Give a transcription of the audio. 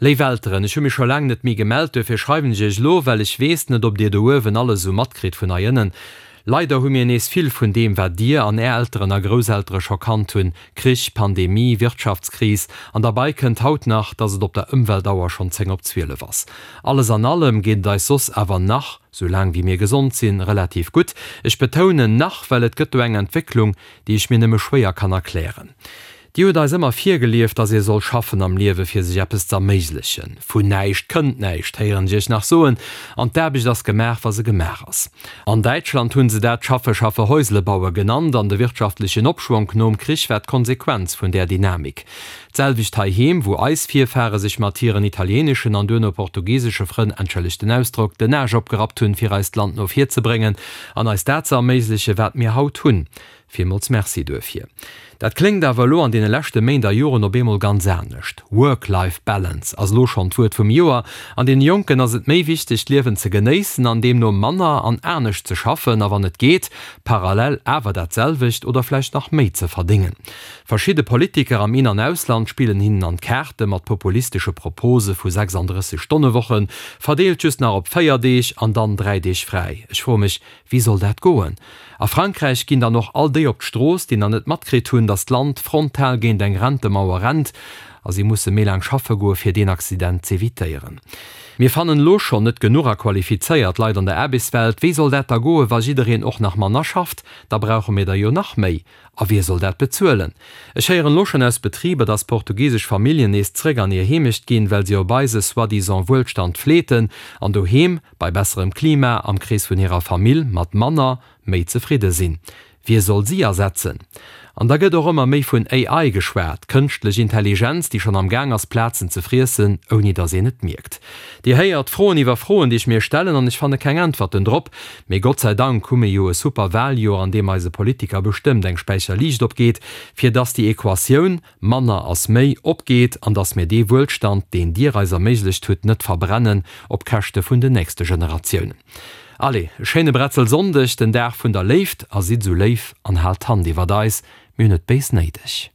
Léif Elteren, ech hu mech scho laang net méi gemellt, duerfir schreiwen ech iech elo, well ech weess net, ob dir do uewen alles esou matkritt vun hei ënnen. Leider hu mir nees vill vun deem, wat dir an är Elteren a Grousseltere scho kannt hunn, Krich, Pandemie, Wirtschaftskris, an derbei kënnt haut nach, dass et op der Ëmweltauer schonn 10 op 12 ass. Alles an allem geet et eis soss awer nach, sou laang wéi mir gesond sinn, relativ gutt. Ech betounen nach, well et gëtt do eng Entwécklung, déi ech mir nëmme schwéier kann erklären. Dir hutt eis ëmmer virgelieft, dass ee soll schaffen am Liewe fir sech eppes z'erméiglechen. Vun näischt kënnt näischt, héieren ech iech nach soen, an d'Aarbecht ass gemaach, wa se gemaach ass. An Däitschland hunn se dat Schaffe, schaffe, Häusle baue genannt, an de wirtschaftlechen Opschwonk nom Krich war d'Konsequenz vun där Dynamik. D'selwecht heiheem, wou eis Virfahre sech mat hiren italieeneschen an duerno portugisesche Frënn, entschëllegt den Ausdrock, den Aasch opgerappt hunn, fir eist Land no vir ze bréngen an eis dat ze erméigleche wat mir haut hunn. Villmools Merci duerfir. Dat kléngt awer elo an deene leschte Méint a Joren op eemol ganz anescht. Work-Life Balance ass elo schonn d'Wuert vum Joer. An deene Jonken ass et méi wichteg, d'Liewen ze genéissen an deemno manner an anescht ze schaffen a wann et geet, parallel awer dat selwecht oder vläicht nach méi ze verdéngen. Verschidde Politiker am In an Ausland spillen hinnen an d'Kaarte mat populistesche Propose vu 36 Stonne-Wochen, verdeelt just nach op 4 Deeg an dann 3 Deeg fräi. Ech froe mech, Wéi soll dat goen? A Frankräich ginn dann och all déi op d'Strooss, déi nach net matkritt hunn, datt d'Land frontal géint eng Rentemauer rennt a si musse méi laang schaffe goe fir deen Accident z'evitéieren. Mir fannen elo schonn net genuch a qualifizéiert Leit an der Aarbechtswelt. Wéi soll dat da goe wa jiddereen och nach manner schafft? Da brauche mir der jo nach méi. A wie soll dat bezuelen? Ech héieren elo schonn aus Betriber, dass portugisesch Familljen nees zréck an hir Heemecht ginn, well si op eise soi-disant Wuelstand fleeten an doheem, bei besserem Klima, am Krees vun hirer Famill, mat manner, méi zefridde sinn. Wie soll si ersetzen? An da gëtt och ëmmer méi vun AI geschwat, kënschtlech Intelligenz, déi schonn am Gaang ass, Plazen ze friessen, ouni dass een et mierkt. Dir héiert, Froen iwwer Froen, déi ech mir stellen, an ech fanne keng Äntwerten drop. Mee Gott sei Dank hu mir jo e super Wahljoer, an deem eise Politiker bestëmmt eng Späicher Liicht opgeet, fir dass déi Equatioun, manner ass méi, opgeet an dass mir dee Wuelstand, deen Dir eis erméiglecht hutt, net verbrennen op Käschte vun den nächste Generatiounen. Allez, e schéine Bretzelsonndeg, den Dag vun der Léift, a sidd esou léif an haalt d'Hand iwwert eis, mir hunn et béis néideg.